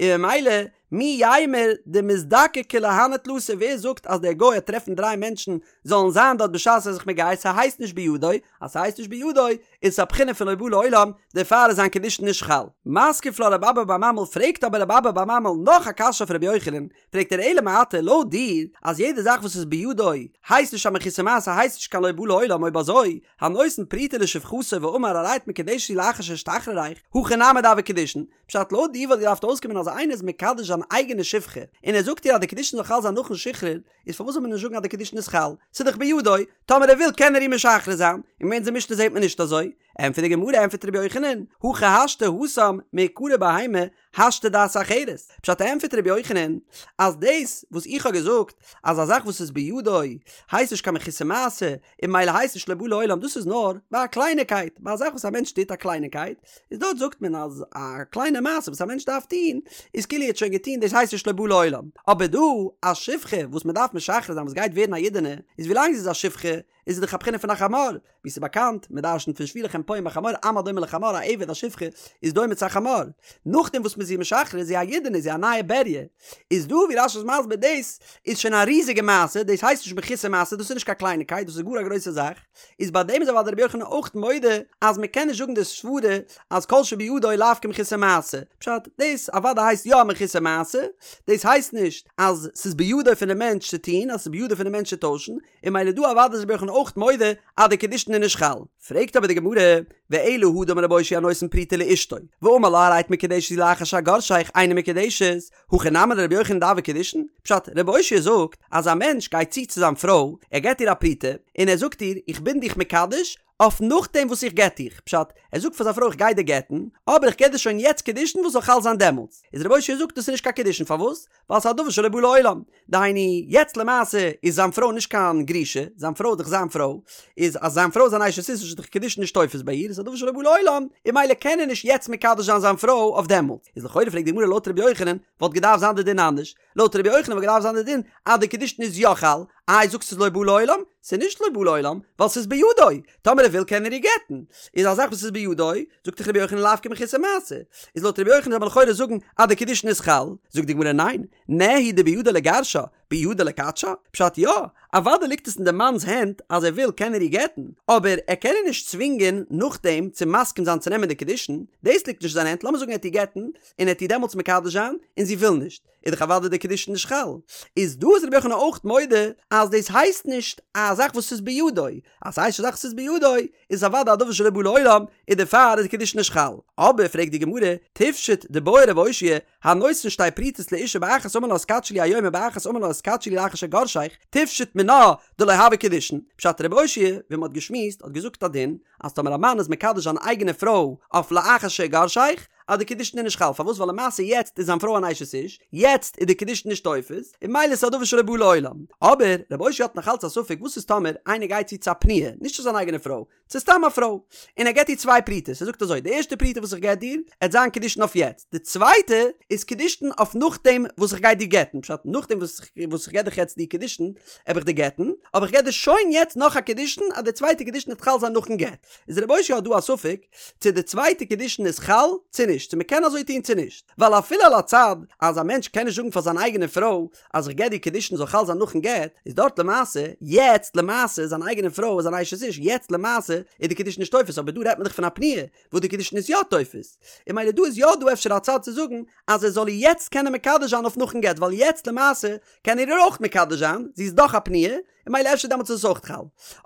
און ממילא מי יימר דמזדקקי להני תלתא ווער זאגט אז דער גוי וועט טרעפן דריי מענטשן זאלן זיין דארט בשעת ער איז זיך מגייר ס'הייסט נישט בידו אז ס'הייסט נישט בידו איז עס א בחינה פון לא בא לעולם דערפאר איז זיין קידושין נישט חל. מתקיף לה רב אבא בר ממל פרעגט אבער רב אבא בר ממל נאך א קשיא אויף רבי יוחנן פרעגט ער אלא מעתה לויט דיר אז יעדע זאך וואס איז בידו הייסט נישט א מחוסר מעשה הייסט נישט קיין לא בא לעולם אויב אזוי הנותן פרוטה לשפחתו ואמר הרי את מקודשת לי לאחר שאשתחררך הכי נמי דהוו קידושין פשט לויט דיר וואלט געדארפט אויסקומען אז איינער איז מקדש זיין אייגענע שפחה און ער זאגט איר אז די קידושין זאל חל זיין נאכן שחרור, איז פארוואס זאל מען נישט זאגן אז די קידושין איז חל? ס'איז דאך בידו, טאמער ער וויל קען ער איר משחרר זיין, און אין אונזער משנה זעט מען נישט אזוי. ענטפערט די גמרא ענטפערט רבי יוחנן, הכי השתא התם מעיקרא בהמה השתא דעת אחרת, פשט ענטפערט רבי יוחנן אז דאס וואס איך האב געזאגט אז א זאך וואס איז בידו הייסט נישט קיין מחוסר מעשה און ממילא הייסט נישט לא בא לעולם דאס איז נאר ביי א קלייניקייט, ביי א זאך וואס א מענטש טוט א קלייניקייט, איז דארט זאגט מען אז א קליינע מעשה וואס א מענטש דארף טון איז כאילו ער האט שוין געטון דאס הייסט נישט לא בא לעולם, אבער דא א שפחה וואס מען דארף משחרר זיין וואס גייט ווערן א אידענע איז ווילאנג זי איז א שפחה איז זי דאך א בחינה פון א חמור, ווי ס'איז באקאנט, מען דרשנ'ט פון שבו לכם פה עם החמור עם הדומה לחמור א עבד א שפחה איז דומה צו א חמור, נאכדעם וואס מ'איז איר משחרר איז זי א אידענע איז זי א נייע בריה, איז דא ווי רש"י איז מסביר דאס איז שוין א ריזיגע מעשה דאס הייסט נישט מחוסר מעשה דאס איז נישט קיין קלייניקייט דאס איז גאר א גרויסע זאך, איז ביי דעם איז אוודאי רבי יוחנן אויך מודה אז מען קען נישט זאגן די סברה אז כל שבידו לאו כמחוסר מעשה, פשט, דאס אוודאי הייסט יא א מחוסר מעשה, דאס הייסט נישט אז ס'איז בידו פונעם מענטש צו טון, אז ס'איז בידו פונעם מענטש צו טוישן, און ממילא דא אוודאי איז רבי יוחנן אויך מודה אז די קידושין איז נישט חל. פרעגט אבער די גמרא, ואלא הא דאמר רבי אושעיא הנותן פרוטה לאשתו, ואמר לה הרי את מקודשת לי לאחר שאגרשך אינה מקודשת, הכי נמי לרבי יוחנן דהוו קידושין? פשט, רבי אושעיא זאגט אז א מענטש גייט צו צו זיין פרוי, ער געבט איר א פרוטה, און ער זאגט איר איך בין דיך מקדש אויף נאכדעם וואס איך גט דיך, פשט, ער זאגט פאר זיין פרוי איך גיי דיר גט'ן, אבער איך געב דיר שוין יעצט קידושין וואס זאל חל זיין דעמאלטס, איז רבי אושעיא זאגט דאס איז נישט קיין קידושין פארוואס? ווייל ס'איז א דבר שלא בא לעולם, דהיינו, יעצט למעשה איז זיין פרוי נישט קיין גרושה, זיין פרוי איז דאך זיין פרוי, איז אז זיין פרוי איז אן אשת איש איז דאך קידושין נישט תופס ביי איר, איז א דבר שלא בא לעולם, און ממילא קען ער נישט יעצט מקדש זיין זיין פרוי אויף דעמאלטס. איז לכאורה פרעגט די גמרא לויט רבי יוחנן וואלט געדארפט זיין די דין אנדערש, לויט רבי יוחנן וואלט געדארפט זיין די דין אז די קידושין איז יא חל, איי זאגסט ס'איז לא בא לעולם? ס'איז נישט לא בא לעולם, ווייל ס'איז בידו, טאמער ער וויל קען ער איר גט'ן, איז א זאך וואס איז בידו, זאגט דאך רבי יוחנן לאו כמחוסר מעשה, איז לויט רבי יוחנן זאל מען לכאורה זאגן אז די קידושין איז חל, זאגט די גמרא ניין, נהי דבידו לגרשה, בידו לקדשה? פשט יא, אוודאי ליגט עס אין די מאנ'ס הענט אז ער וויל קען ער איר גט'ן, אבער ער קען איר נישט צווינגען נאכדעם צו מסכים זיין צו נעמען די קידושין, דאס ליגט נישט אין זיין הענט, לאמיר זאגן ער וועט איר גט'ן, און ער וועט איר דעמאלטס מקדש זיין, און זי וויל נישט, איז דאך אוודאי די קידושין נישט חל. איז דא איז רבי יוחנן אויך מודה אז דאס הייסט נישט א זאך וואס איז בידו, אז ס'הייסט נישט א זאך וואס איז בידו, איז אוודאי א דבר שלא בא לעולם, און דערפאר איז די קידושין נישט חל. אבער פרעגט די גמרא, תפשוט דבעי רב אושעיא, הנותן שתי פרוטות לאשה באחת אמר לה התקדשי לי היום ובאחת אמר לה התקדשי לי לאחר שאגרשך, תפשוט מינה דלא הוה קידושין. פשט רב אושעיא, ווי מ'האט געשמועסט, האט געזאגט א דין, אז טאמער א מאן איז מקדש זיין אייגענע פרוי אויף לאחר שאגרשך, אז די קידושין איז נישט חל, פארוואס? ווייל למעשה יעצט איז זיין פרוי אן אשת איש, יעצט איז די קידושין נישט תופס, און ממילא איז עס א דבר שלא בא לעולם. אבער רב אושעיא האט נאך אלץ א ספק וואס איז טאמער איינער גייט צו צו א פנויה, נישט צו זיין אייגענע פרוי, צו סתם א פרוי, און ער געט איר צוויי פרוטות, ער זאגט אזוי, די ערשטע פרוטה וואס איך געב דיר, עט זיין קידושין אויף יעצט, די צווייטע איז קידושין אויף נאכדעם וואס איך גיי דיר גט'ן, פשט, נאכדעם וואס וואס איך געב דיך יעצט די קידושין, העב איך דיר גט'ן, אבער איך געב דיר שוין יעצט נאך א קידושין אז די צווייטע קידושין עט חל זיין נאכן גט. איז רב אושעיא האט דא א ספק צו די צווייטע קידושין איז חל צו נישט, צו מ'קען אזוי טון צו נישט, ווייל אפילו על הצד אז א מענטש קען נישט זאגן פאר זיין אייגענע פרוי אז איך געב דיר קידושין זאל חל זיין נאכן גט, איז דארט למעשה, יעצט למעשה, זיין אייגענע פרוי איז אן אשת איש, יעצט למעשה איז די קידושין נישט תופס, אבער דא רעדט מען דאך פון א פנויה וואס די קידושין איז יא תופס, און ממילא דא איז יא דא אפשר א צד צו זאגן אז ער זאל איר יעצט קענען מקדש זיין אויף נאכן גט, ווייל יעצט למעשה קען ער איר אויך מקדש זיין, זי איז דאך א פנויה, און ממילא אפשר דעמאלטס איז עס אויך חל.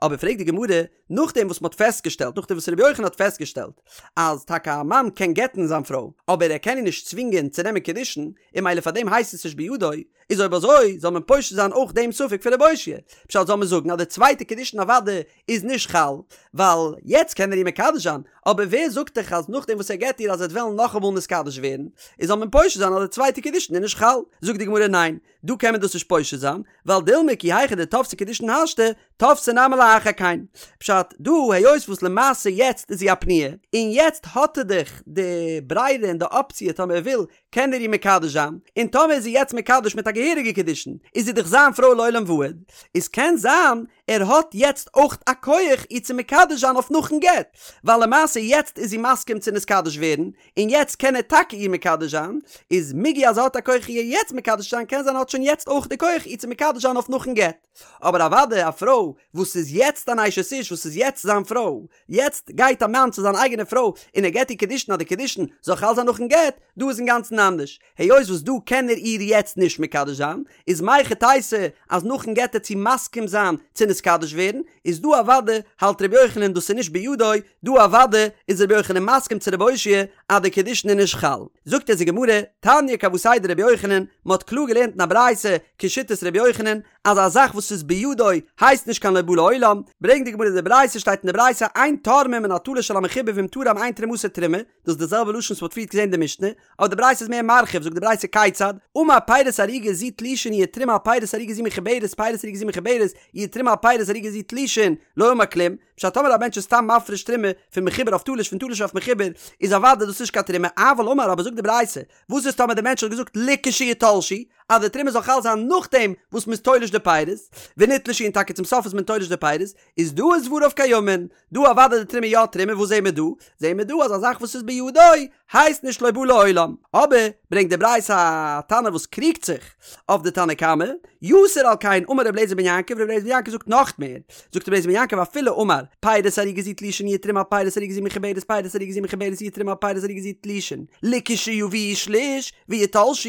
אבער פרעגט די גמרא, נאכדעם וואס מ'האט פעסטגעשטעלט, נאכדעם וואס רבי יוחנן האט פעסטגעשטעלט, אז טאקע א מאן קען גט'ן זיין פרוי, אבער ער קען איר נישט צווינגען צו נעמען קידושין, און ממילא פאר דעם הייסט עס נישט בידו, איז אויב אזוי זאל מען פושט זיין אויך דעם ספק פון רב אושעיא, פשט זאל מען זאגן אז די צווייטע קידושין אוודאי איז נישט חל, ווייל יעצט קען ער איר מקדש זיין, אבער ווער זאגט דיך אז נאכדעם וואס ער גט איר אז ער וועט וועלן נאכאמאל נתקדש ווערן, איז זאל מען פושט זיין אז די צווייטע קידושין איז נישט חל? זאגט די גמרא ניין, דא קען מען דאס נישט פושט זיין, ווייל דילמא כי היכי דתפסי קידושין השתא, תפסי נמי לאחר כן. פשט, דא היות וואס למעשה יעצט איז זי א פנויה, און יעצט האט ער דאך די ברירה און די אפציע טאמער ער וויל קען ער איר מקדש זיין, און טאמער איז זי יעצט מקדש מיט א געהעריגע קידושין איז זי דאך זיין פרוי לעולם ועד, איז קען זיין ער האט יעצט אויך א כח איר צו מקדש זיין אויף נאכן גט, ווייל למעשה יעצט איז זי מסכים צו נתקדש ווערן, און יעצט קען ער טאקע איר מקדש זיין, איז מיגו אז ער האט א כח איר יעצט מקדש זיין קען זיין ער האט שוין יעצט אויך די כח איר צו מקדש זיין אויף נאכן גט. אבער אוודאי א פרוי וואס איז יעצט אן אשת איש וואס איז יעצט זיין פרוי, יעצט גייט א מאן צו זיין אייגענע פרוי און ער געט איר קידושין אז די קידושין זאל חל זיין נאכן גט, דא איז אינגאנצן אנדערש, היות וואס דא קען ער איר יעצט נישט מקדש זיין, איז מהיכי תיתי אז נאכן גט עט זי מסכים זיין צו נתקדש ווערן, איז דא אוודאי האלט רבי יוחנן דאס איז נישט בידו, דא אוודאי איז רבי יוחנן מסכים צו רב אושעיא אז די קידושין איז נישט חל. זאגט אונז די גמרא, תניא כוותיה דרבי יוחנן, מען האט קלאר געלערנט אין א ברייתא כשיטת רבי יוחנן, אז א זאך וואס איז בידו הייסט נישט קיין לא בא לעולם, ברענגט די גמרא די ברייתא שטייט אין די ברייתא אין תורמים מן התלוש על המחובר ואם תרם אין תרומתו תרומה, דאס איז די זעלבע לשון וואס מ'האט פריערט געזען אין די משנה, אבער די ברייתא איז מער מרחיב, זאגט די ברייתא כיצד, אמר פירות ערוגה זו תלושין יהא תרומה על פירות ערוגה זו מחוברת פירות ערוגה זו מחוברת יהא תרומה על פירות ערוגה זו תלושין, לא אמר כלום, פשט טאמער א מענטש איז סתם מפריש תרומה פון מחובר אויף תלוש פון תלוש אויף מחובר איז אוודאי דאס נישט קיין תרומה, אבל אמר אבער זאגט די ברייתא, וואס איז טאמער די מענטש האט געזאגט לכשיתלשו אז די תרומה זאל חל זיין נאכדעם וואס מ'איז תולש די פירות, ונתלשו און טאקע צום סוף איז מען תולש די פירות, איז דא איז דבריו קיימין, דא אוודאי די תרומה יא תרומה, וואס זעהן מיר דא? זעהן מיר דא אז א זאך וואס איז בידו הייסט נישט לא בא לעולם, אבער ברענגט די ברייתא א תנא וואס קריגט זיך אויף די תנא קמא, יתר על כן אמר רבי אליעזר בן יעקב, רבי אליעזר בן יעקב זאגט נאך מער, זאגט רבי אליעזר בן יעקב אפילו אמר פירות ערוגה זו תלושין יהא תרומה על פירות ערוגה זו מחוברת פירות ערוגה זו מחוברת יהא תרומה על פירות ערוגה זו תלושין לכשיביאו שליש ויתלשו,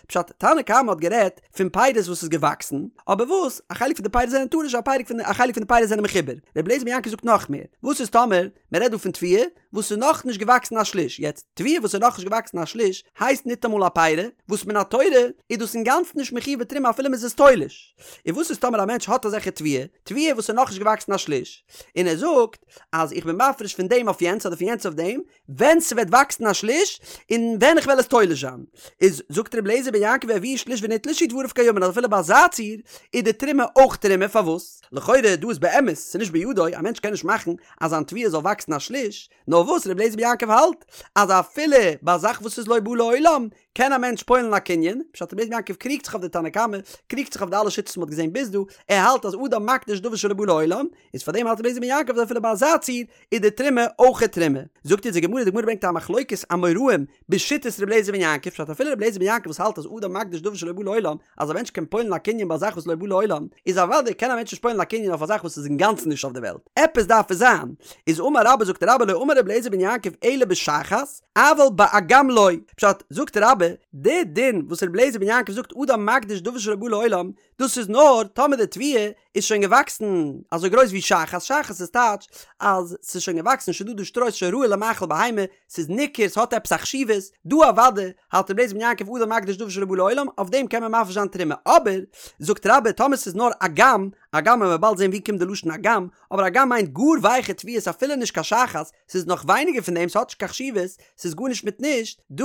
פשט, תנא קמא האט גערעדט פון פירות וואס איז געוואקסן, אבער וואס, א חלק פון די פירות זענען תלוש א פרק פון א חלק פון די פירות זענען מחובר, רבי אליעזר בן יעקב זאגט נאך מער, וואס איז טאמער מען רעדט דא פון תבואה וואס איז נאך נישט געוואקסן א שליש, יעצט תבואה וואס איז נאך נישט געוואקסן א שליש הייסט ניטאמאל א פירי, וואס מן התורה איז דאס אינגאנצן נישט מחויב בתרומה אפילו מען איז עס תולש, און וואס איז טאמער א מענטש האט אזעלכע תבואה, תבואה וואס איז נאך נישט געוואקסן א שליש, און ער זאגט אז איך בין מפריש פון דעם אויף יענץ אדער פון יענץ אויף דעם, ווען ס'וועט וואקסן א שליש, און ווען איך וועל עס תולש זיין. איז זאגט רבי אליעזר בן יעקב והביאו שליש ונתלשו דבריו קיימין אז אפילו ביי אזא ציור איז די תרומה אויך תרומה, פארוואס? לכאורה דא איז באמת ס'נישט בידו, א מענטש קען נישט מאכן אז זיין תבואה זאל וואקסן א שליש, נאר וואס רבי אליעזר בן יעקב האלט אז אפילו ביי א זאך וואס איז לא בא לעולם קען א מענטש פועל'ן א קנין, פשט רבי אליעזר בן יעקב קריגט זיך אויף די תנא קמא, קריגט זיך אויף די אלע שיטות וואס מ'האט געזען ביז דא, ער האלט אז אדם מקדיש דבר שלא בא לעולם, איז פאר דעם האלט רבי אליעזר בן יעקב אז אפילו ביי אזא ציור איז די תרומה אויך תרומה. זאגט אונז די גמרא, די גמרא ברענגט א מחלוקת אמוראים בשיטת רבי אליעזר בן יעקב, פשט אפילו רבי אליעזר בן יעקב וואס האלט אז אדם מקדיש דבר שלא בא לעולם, אז א מענטש קען פועל'ן א קנין ביי א זאך וואס לא בא לעולם, איז אוודאי קען א מענטש נישט פועל'ן א קנין אויף א זאך וואס איז אינגאנצן נישט אויף די וועלט, עפעס דארף עס זיין. איז אמר רבה זאגט רבה לא אמר רבי אליעזר בן יעקב אלא בשחת, אבל באגם לא. פשט, זאגט רבה, די דין וואס רבי אליעזר בן יעקב זאגט אדם מקדיש דבר שלא בא לעולם, דאס איז נאר טאמער די תבואה איז שוין געוואקסן אזוי גרויס ווי שחת, שחת איז טייטש אז ס'איז שוין געוואקסן שוין דא דא שטרוי ס'איז שוין ראוי למאכל בהמה, ס'איז ניכר ס'האט עפעס א חשיבות, דא אוודאי האלט רבי אליעזר בן יעקב אדם מקדיש דבר שלא בא לעולם, אויף דעם קען מען מפריש זיין תרומה, אבער זאגט רבה טאמער ס'איז נאר אגם, אגם וועלן מיר באלד זען ווי קומט די לשון אגם, אבער אגם מיינט גאר ווייכע תבואות אפילו נישט קיין שחת, ס'איז נאך ווייניגער פון דעם, ס'האט נישט קיין חשיבות, ס'איז גארנישט מיט נישט, דא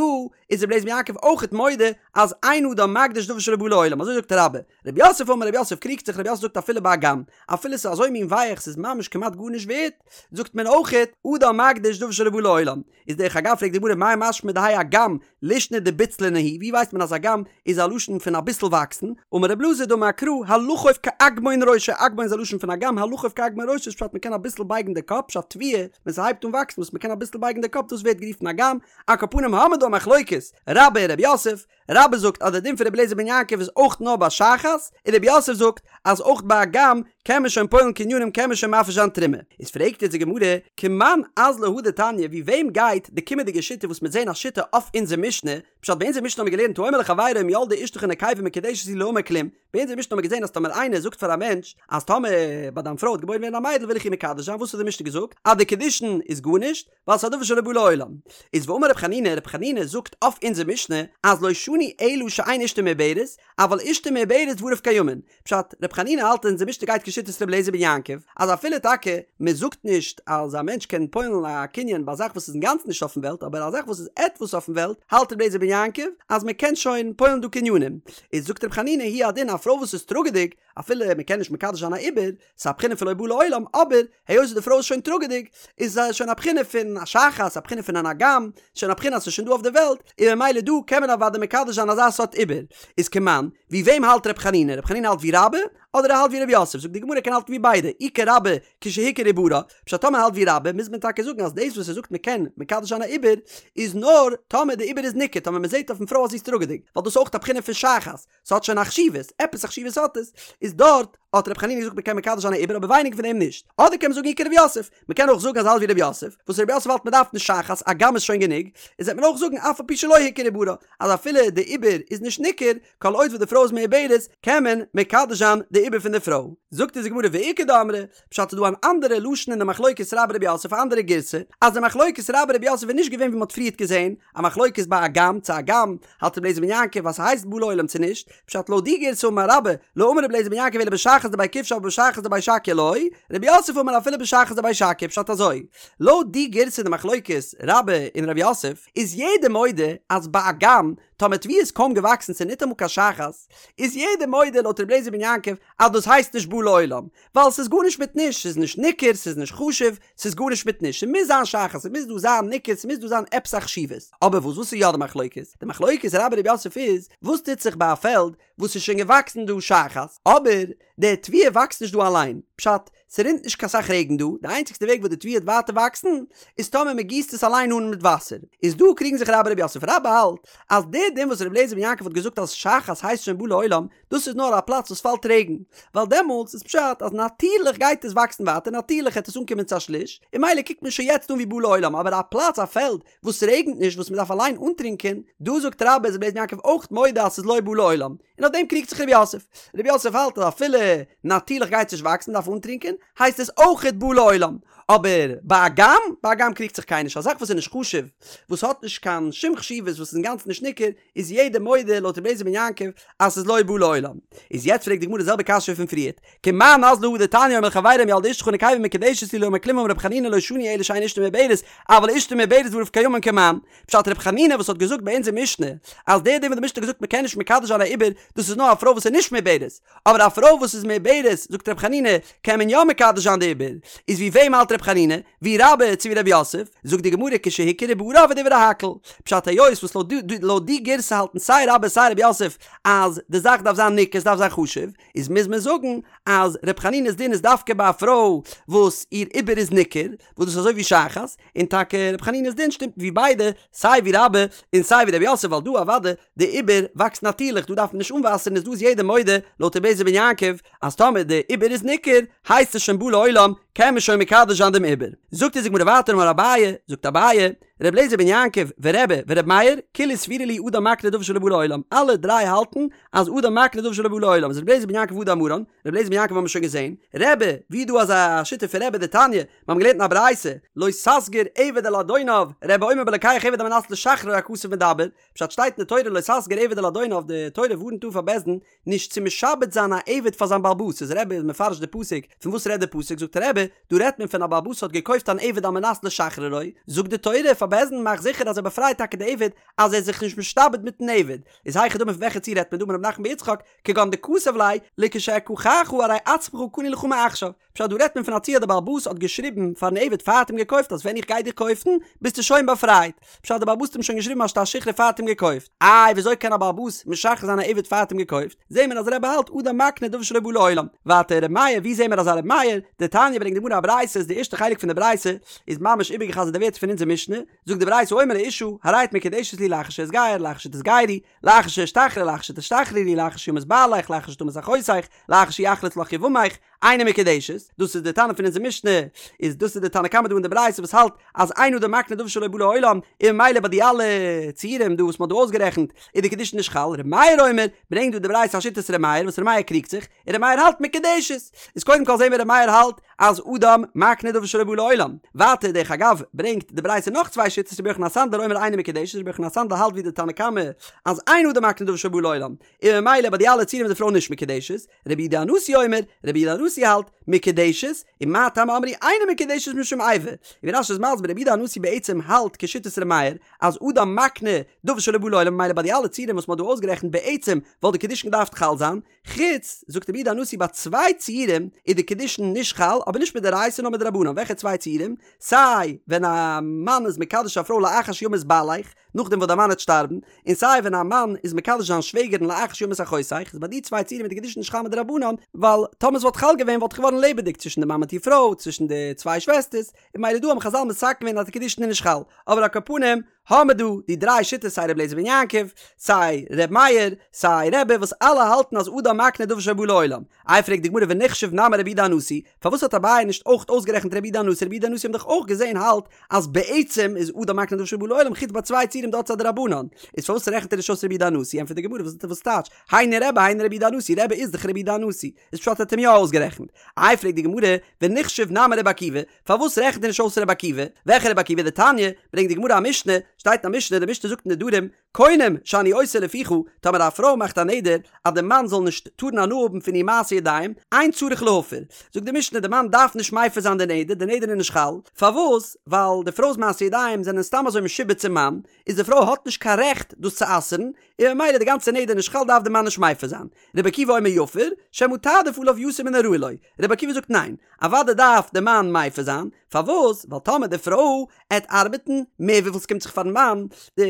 איז רבי אליעזר בן יעקב אויכעט מודה אז אין אדם מקדיש דבר שלא בא לעולם, אזוי זאגט רבה. רב יוסף אמר רב יוסף קריגט זיך רב יוסף זאגט אפילו באגם, אפילו ס'איז אזוי מין ווייך ס'איז ממש כמעט גארנישט ווערט, זאגט מען אויכעט אדם מקדיש דבר שלא בא לעולם. איז דרך אגב פרעגט די גמרא מאי משמע דהאי אגם לישנא דבוצלנא הוא, ווי ווייסט מען אז אגם איז א לשון פון אביסל וואקסן, אמר רב אלעזר דאמר קרא הלכוף כאגמון ראשו, אגמון איז א לשון פון אגם, הלכוף כאגמון ראשו איז פשט מ'קען אביסל בייגן די קאפ, פשט תבואה, ווען ס'הייבט אן וואקסן וואס מ'קען אביסל בייגן די קאפ דאס ווערט גערופן אגם, על כל פנים האמיר דא א מחלוקת, רבה און רב יוסף, רבה זאגט אז די דין פון רבי אליעזר בן יעקב איז אויך נאר ביי שחת, און רב יוסף זאגט אז אויך ביי אגם קען מען שוין פועל'ן קנינים קען מען שוין מפריש זיין תרומה. איז פרעגט יעצט די גמרא, כמאן אזלא הא דתניא ווי וועם גייט די קומענדיגע שיטה וואס מ'עט זעהן א שיטה אויף אונזער משנה, פשט ביי אונזער משנה האמיר געלערנט האומר לחבירו אם ילדה אשתך נקבה מקודשת לי לא אמר כלום, ביי אונזער משנה האמיר געזען אז טאמער איינער זאגט פאר א מענטש אז טאמער ביי דיין פרוי וועט געבוירן ווערן א מיידל וויל איך איר מקדש זיין וואס האט די משנה געזאגט אז די קידושין איז גארנישט ווייל ס'איז א דבר שלא בא לעולם איז ואמר רב חנינא רב חנינא זאגט אויף אונזער משנה אז לא שנו אלא שאין אשתו מעוברת אבל אשתו מעוברת דבריו קיימין פשט, ר' חנינא האלט אז אונזער משנה גייט כשיטת ר' אליעזר בן יעקב, אז אפילו טאקע מען זאגט נישט אז א מענטש קען פועל'ן א קנין ביי א זאך וואס איז אינגאנצן נישט אויפן וועלט, אבער א זאך וואס איז עטוואס אויפן וועלט, האלט ר' אליעזר בן יעקב אז מען קען שוין פועל'ן דא קנינים. איז זאגט ר' חנינא הוא הדין א פרוי וואס איז טראגעדיג, אפילו מען קען נישט מקדש זיין א עובר, ס'איז א בחינה פון לא בא לעולם, אבער היות די פרוי איז שוין טראגעדיג, איז עס שוין א בחינה פון א שחת, א בחינה פון אן אגם, שוין א בחינה אז ס'איז שוין דא אויף די וועלט, און ממילא דא קען מען אוודאי מקדש זיין אזא סארט עובר. איז כמאן, ווי וועם האלט ר' חנינא? ר' חנינא האלט ווי רבה, אדער ער האלט ווי ר' יוסף? זאגט די גמרא ער קען האלטן ווי ביידע, אי כרבה כשהוכר עוברה, פשט טאמער האלט ווי רבה מוז מען טאקע זאגן אז דאס וואס ער זאגט מ'קען מקדש זיין א עובר, איז נאר טאמער די עובר איז ניכר, טאמער מ'זעט אויפן פרוי אז זי איז טראגעדיג, ווייל דאס איז אויך א בחינה פון שחת, ס'האט שוין א חשיבות, עפעס א חשיבות האט עס, איז דארט האט ר' חנינא געזאגט מ'קען מקדש זיין א עובר אבער ווייניגער פון דעם נישט. אדער קען מען זאגן אי כר' יוסף, מ'קען אויך זאגן אז האלט ווי ר' יוסף, וואס ר' יוסף האלט מ'דארף נישט שחת, אגם איז שוין גענוג, איז וועט מען אויך זאגן אף על פי שלא הוכר עוברה, אז אפילו די עובר איז נישט ניכר, כל עוד וואס די פרוי איז מעוברת, קען מען מקדש זיין די עובר פון די פרוי. זאגט אונז די גמרא ואיכא דאמרי, פשט איז דא אן אנדערע לשון אין די מחלוקת רבה רב יוסף א אנדערע גירסא, אז די מחלוקת רבה רב יוסף איז נישט געווען ווי מ'האט פריערט געזען, א מחלוקת ביי אגם צו אגם האלט רבי אליעזר בן יעקב אז ס'הייסט בא לעולם צו נישט, פשט לויט די גירסא אמר רבה לא אמר רבי אליעזר בן יעקב אלא בשחת דבי כבשי אבל בשחת דבי שקיא לא, רב יוסף אמר אפילו בשחת דבי שקיא פשט אזוי, לויט די גירסא די מחלוקת רבה און רב יוסף איז יעדער מודה אז ביי אגם טאמער תבואה איז קוים געוואקסן ס'איז ניטאמאל קיין שחת איז יעדער מודה לויט רבי אליעזר בן יעקב אז דאס הייסט נישט בא לעולם ווייל ס'איז גארנישט מיט נישט, ס'איז נישט ניכר, ס'איז נישט חשוב, ס'איז גארנישט מיט נישט, ס'מוז זיין שחת, ס'מוז דא זיין ניכר, ס'מוז דא זיין עפעס א חשיבות. אבער וואס וואס איז יא די מחלוקת? די מחלוקת רבה רב יוסף איז, וואס טוט זיך ביי א פעלד וואס איז שוין געוואקסן דא שחת, אבער די תבואה וואקסט נישט דא אליין, פשט, ס'רינט נישט קיין סאך רעגן דא, די איינציגסטע וועג וואס די תבואה וועט ווייטער וואקסן, איז טאמער מ'גיסט עס אליין אן מיט וואסער. איז דא קריגן זיך רבה רב יוסף, רבה האלט אז די דין וואס רבי אליעזר בן יעקב האט געזאגט אז שחת הייסט שוין בא לעולם, דאס איז נאר א פלאץ וואס פאלט רעגן, ווייל דעמאלטס איז פשט אז נאטירליך גייט עס וואקסן ווייטער, נאטירליך העט עס אנקומען צו א שליש, און ממילא קוקט מען שוין יעצט אן ווי בא לעולם, אבער א פלאץ א פעלד וואס רעגנט נישט וואס מען דארף אליין אנטרינקען, דא זאגט רבה איז רבי אליעזר בן יעקב אויך מודה אז ס'איז לא בא לעולם, און אויף דעם קריגט זיך רב יוסף, רב יוסף האלט אז אפילו נאטירליך גייט עס נישט וואקסן מען דארף אנטרינקען, הייסט עס אויכעט בא לעולם. אבער ביי אגם, ביי אגם קריגט זיך קיינער נישט, א זאך וואס איז נישט חשוב, וואס האט נישט קיין שום חשיבות, וואס איז אינגאנצן נישט ניכר, איז יעדער מודה לויט רבי אליעזר בן יעקב אז ס'איז לא בא לעולם. איז יעצט פרעגט די גמרא די זעלבע קשיא פון פריערט, כמאן אזלא הא דתניא האומר לחבירו אם ילדה אשתך נקבה מקודשת לי לא אמר כלום אמר רבי חנינא לא שנו אלא שאין אשתו מעוברת אבל אשתו מעוברת דבריו קיימין כמאן. פשט רבי חנינא וואס האט געזאגט ביי אונזער משנה אז דער דין וואס די משנה האט געזאגט מ'קען נישט מקדש זיין א עובר דאס איז נאר א פרוי וואס איז נישט מעוברת אבער א פרוי וואס איז מעוברת זאגט רבי חנינא קען מען יא מקדש זיין די עובר איז ווי וועם האלט רבי חנינא? ווי רבה צו ווי רב יוסף? זאגט די גמרא כשהוכר עוברה ודברי הכל. פשט היות וואס לויט די גירסא האלטן סיי רבה סיי רב יוסף אז די זאך דארף זיין ניכר ס'דארף זיין חשוב, איז מוז מען זאגן אז ר' חנינא'ס דין איז דווקא ביי א פרוי וואס איר עובר איז ניכר, וואס דאס איז אזוי ווי שחת, און טאקע ר' חנינא'ס דין שטימט ווי ביידע, סיי ווי רבה און סיי ווי רב יוסף ווייל דא אוודאי די עובר וואקסט נאטירליך דא דארף מען נישט אנוואסערן איז דא איז יעדער מודה לויט רבי אליעזר בן יעקב אז טאמער די עובר איז ניכר הייסט עס שוין בא לעולם קען מען שוין מקדש זיין דעם עובר. זאגט אונז די גמרא ווייטער אמר אביי, זאגט אביי, ר' אליעזר בן יעקב ורבי ור' מאיר, כולהו סבירא להו אדם מקנה דבר שלא בא לעולם, אלע דריי האלטן אז אדם מקנה דבר שלא בא לעולם, איז ר' אליעזר בן יעקב הא דאמרן, ר' אליעזר בן יעקב האבן מיר שוין געזען, רבי, ווי איז דא אזא שיטה פון רבי דתניא, מיר האבן געלערנט אין א ברייתא, לא תסגיר עבד אל אדוניו, רבי אומר בלוקח עבד על מנת לשחררו הכתוב מדבר, פשט שטייט אין די תורה לא תסגיר עבד אל אדוניו, די תורה ווארנט אן פאר בית דין נישט צו משעבד זיין א עבד פאר זיין בעל הבית, איז רבי איז מפרש די פסוק, פון וואס רעדט די פסוק, זאגט רבי, דא רעדט מען פון א בעל הבית האט געקויפט אן עבד על מנת לשחררו, זאגט די תורה פאר בית דין מאך זיכער אז ער באפרייט טאקע די עבד, אז ער איז זיך נישט משתעבד מיטן עבד, איז היכי דמי פון וועלכע ציור רעדט מען דא אמר רב נחמן בר יצחק, כגון דכתב ליה, לכשאקחך הרי עצמך קנוי לך מעכשיו, פשט דא רעדט מען פון א ציור אז די בעל הבית האט געשריבן פארן עבד פאר האט אים געקויפט אז ווען איך גיי דיר קויפן ביסטו שוין באפרייט, פשט די בעל הבית האט אים שוין געשריבן א שטר שחרור פאר האט אים געקויפט, איי וויאזוי קען א בעל הבית משחרר זיין א עבד פאר האט אים געקויפט, זעהן מיר אז רבי האלט אדם מקנה דבר שלא בא לעולם, ווייטער ר' מאיר ווי זעהן מיר אזא ר' מאיר, דתניא ברענגט די גמרא א ברייתא איז די ערשטע חלק פון די ברייתא איז ממש איבערגעחזרט די ווערטער פון אונזער משנה, זאגט די ברייתא האומר לאשה הרי את מקודשת לי לאחר שאתגייר לאחר שתתגיירי לאחר שאשתחרר לאחר שתשתחררי לאחר שימות בעליך לאחר שתמות אחותך לאחר שיחלוץ לך יבמך אינה מקודשת, דאס איז די תנא פון אונזער משנה, איז דאס איז די תנא קמא דא אין די ברייתא וואס האלט אז אין אדם מקנה דבר שלא בא לעולם, און ממילא ביי די אלע ציורים דא וואס מען האט דא אויסגערעכנט איז די קידושין נישט חל, ר' מאיר אומר, ברענגט דא די ברייתא א שיטת ר' מאיר וואס ר' מאיר קריגט זיך, און ר' מאיר האלט מקודשת, איז קודם כל זעהן מיר ר' מאיר האלט אז אדם מקנה דבר שלא בא לעולם, ווייטער דרך אגב ברענגט די ברייתא נאך צוויי שיטות רבי יוחנן הסנדלר אומר אינה מקודשת, רבי יוחנן הסנדלר האלט ווי די תנא קמא אז אין אדם מקנה דבר שלא בא לעולם, און ממילא ביי די אלע ציורים איז די פרוי נישט מקודשת, רבי יהודה הנשיא אומר, רבי יהודה הנשיא האלט, מקודשת, ומה טעם אמרו אינה מקודשת משום איבה, און ווי רש"י איז מסביר רבי יהודה הנשיא בעצם האלט כשיטת ר' מאיר, אז אדם מקנה דבר שלא בא לעולם ממילא ביי די אלע ציורים וואס מ'האט דא אויסגערעכנט בעצם וואלט די קידושין געדארפט חל זיין, חוץ, זאגט רבי יהודה הנשיא ביי צוויי ציורים איז די קידושין נישט חל, אבער נישט מדאורייתא נאר מדרבנן, וועלכע צוויי ציורים? סיי ווען א מאן איז מקדש א פרוי לאחר שימות בעליך, נאכדעם וואס דער מאן וועט שטארבן, און סיי ווען א מאן איז מקדש זיין שוועגערין לאחר שימות אחותך, איז ביי די צוויי ציורים איז די קידושין נישט חל מדרבנן, ווייל טאמער ס'וואלט חל געווען וואלט געווארן לעבעדיג צווישן די מאן מיט איר פרוי, צווישן די צוויי שוועסטערס, און ממילא דא האבן חז"ל מתקן געווען אז די קידושין איז נישט חל, אבער על כל פנים האמער דא די דריי שיטות סיי ר' אליעזר בן יעקב, סיי ר' מאיר, סיי רבי וואס אלע האלטן אז אדם מקנה דבר שלא בא לעולם. איי פרעגט די גמרא ונחשוב נמי רבי יהודה הנשיא, פארוואס האט אביי נישט אויך אויסגערעכנט רבי יהודה הנשיא, רבי יהודה הנשיא האבן דאך אויך געזען האלט אז בעצם איז אדם מקנה דבר שלא בא לעולם חוץ ביי צוויי ציורים דארט איז א דרבנן, איז פארוואס רעכנט ער נישט אויס רבי יהודה הנשיא, ענטפערט די גמרא וואס וואס טייטש, היינו רבי היינו רבי יהודה הנשיא, רבי איז דאך רבי יהודה הנשיא, איז פשט ער האט אים יא אויסגערעכנט. איי פרעגט די גמרא ונחשוב נמי רבי עקיבא, פארוואס רעכנט ער נישט אויס רבי עקיבא, וועלכע רבי עקיבא דתניא, ברענגט די גמרא א משנה, שטייט אין א משנה, די משנה זאגט אין נדרים, קונם שאני עושה לפיך, טאמער א פרוי מאכט א נדר אז די מאן זאל נישט טארן הנאה האבן פון איר מעשי ידיים, אין צריך להפר, זאגט די משנה די מאן דארף נישט מפר זיין די נדר, די נדר איז נישט חל, פארוואס? ווייל די פרוי'ס מעשי ידיים זענען סתם אזוי משועבד צום מאן, איז די פרוי האט נישט קיין רעכט דאס צו אסר'ן, און ממילא די גאנצע נדר נישט חל דארף די מאן נישט מפר זיין. רבי עקיבא אומר יפר, שמא תעדיף עליו יתר מן הראוי לו, רבי עקיבא זאגט ניין, אוודאי דארף די מאן מפר זיין, פארוואס? ווייל טאמער די פרוי עט ארבעטן מער וויפיל ס'קומט זיך פארן מאן, די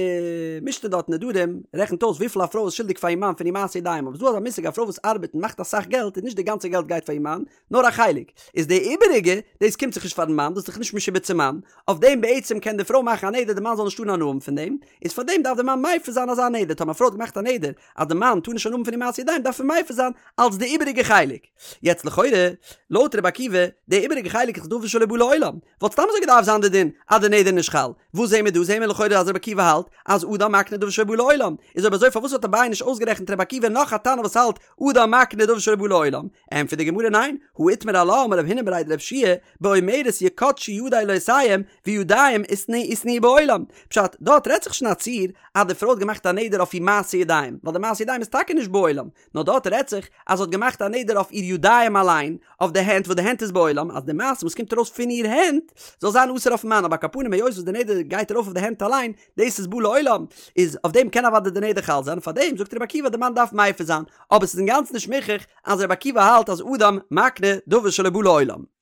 משנה דארט אין נדרים רעכנט אויס וויפיל א פרוי איז שולדיג פאר איר מאן פון איר מעשי ידיים, אבער ס'דא אזא מושג א פרוי וואס ארבעט און מאכט אסאך געלט איז נישט די גאנצע געלט גייט פאר איר מאן, נאר א חלק, איז די איבעריגע, דאס קומט זיך נישט פארן מאן, דאס איז דאך נישט משועבד צום מאן, אויף דעם בעצם קען די פרוי מאכן א נדר די מאן זאל נישט טארן הנאה האבן פון דעם, איז פאר דעם דארף די מאן מפר זיין אזא נדר, טאמער א פרוי האט געמאכט א נדר אז די מאן טאר נישט הנאה האבן פון איר מעשי ידיים דארף ער מפר זיין אלס די איבעריגע חלק. יעצט לכאורה, לויט רבי עקיבא, די איבעריגע חלק איז דבר שלא בא לעולם, וואלט סתם אזוי געדארפט זיין די דין אז די נדר איז נישט חל, וואס זעהן מיר דא? זעהן מיר לכאורה אז רבי עקיבא האלט אז אדם מקנה דבר. דבר שלא בא לעולם, איז אויב אזוי פארוואס האט אביי נישט אויסגערעכנט רבי עקיבא נאך א תנא וואס האלט אדם מקנה דבר שלא בא לעולם? ענטפערט די גמרא ניין, הא איתמר עלה אמר רב הונא בריה דרב יהושע באומרת יקדשו ידי לעושיהם וידיים איתנהו בעולם, פשט, דארט רעדט זיך שוין א ציור אז די פרוי האט געמאכט א נדר אויף איר מעשה ידיים, ווייל די מעשה ידיים איז טאקע נישט בעולם, נאר דארט רעדט זיך אז זי האט געמאכט א נדר אויף איר ידיים אליין, אויף די הענט וואס די הענט איז בעולם, אז די מעשה וואס קומט ארויס פון איר הענט זאל זיין אסור אויפן מאן, אבער על כל פנים היות וואס די נדר גייט ארויף אויף די הענט אליין, דאס איז בא לעולם, איז אויף דעם קען אוודאי די נדר חל זיין, פאר דעם זאגט רבי עקיבא די מאן דארף מפר זיין, אבער ס'איז אינגאנצן נישט מוכרח אז רבי עקיבא האלט אז אדם מקנה דבר שלא בא לעולם.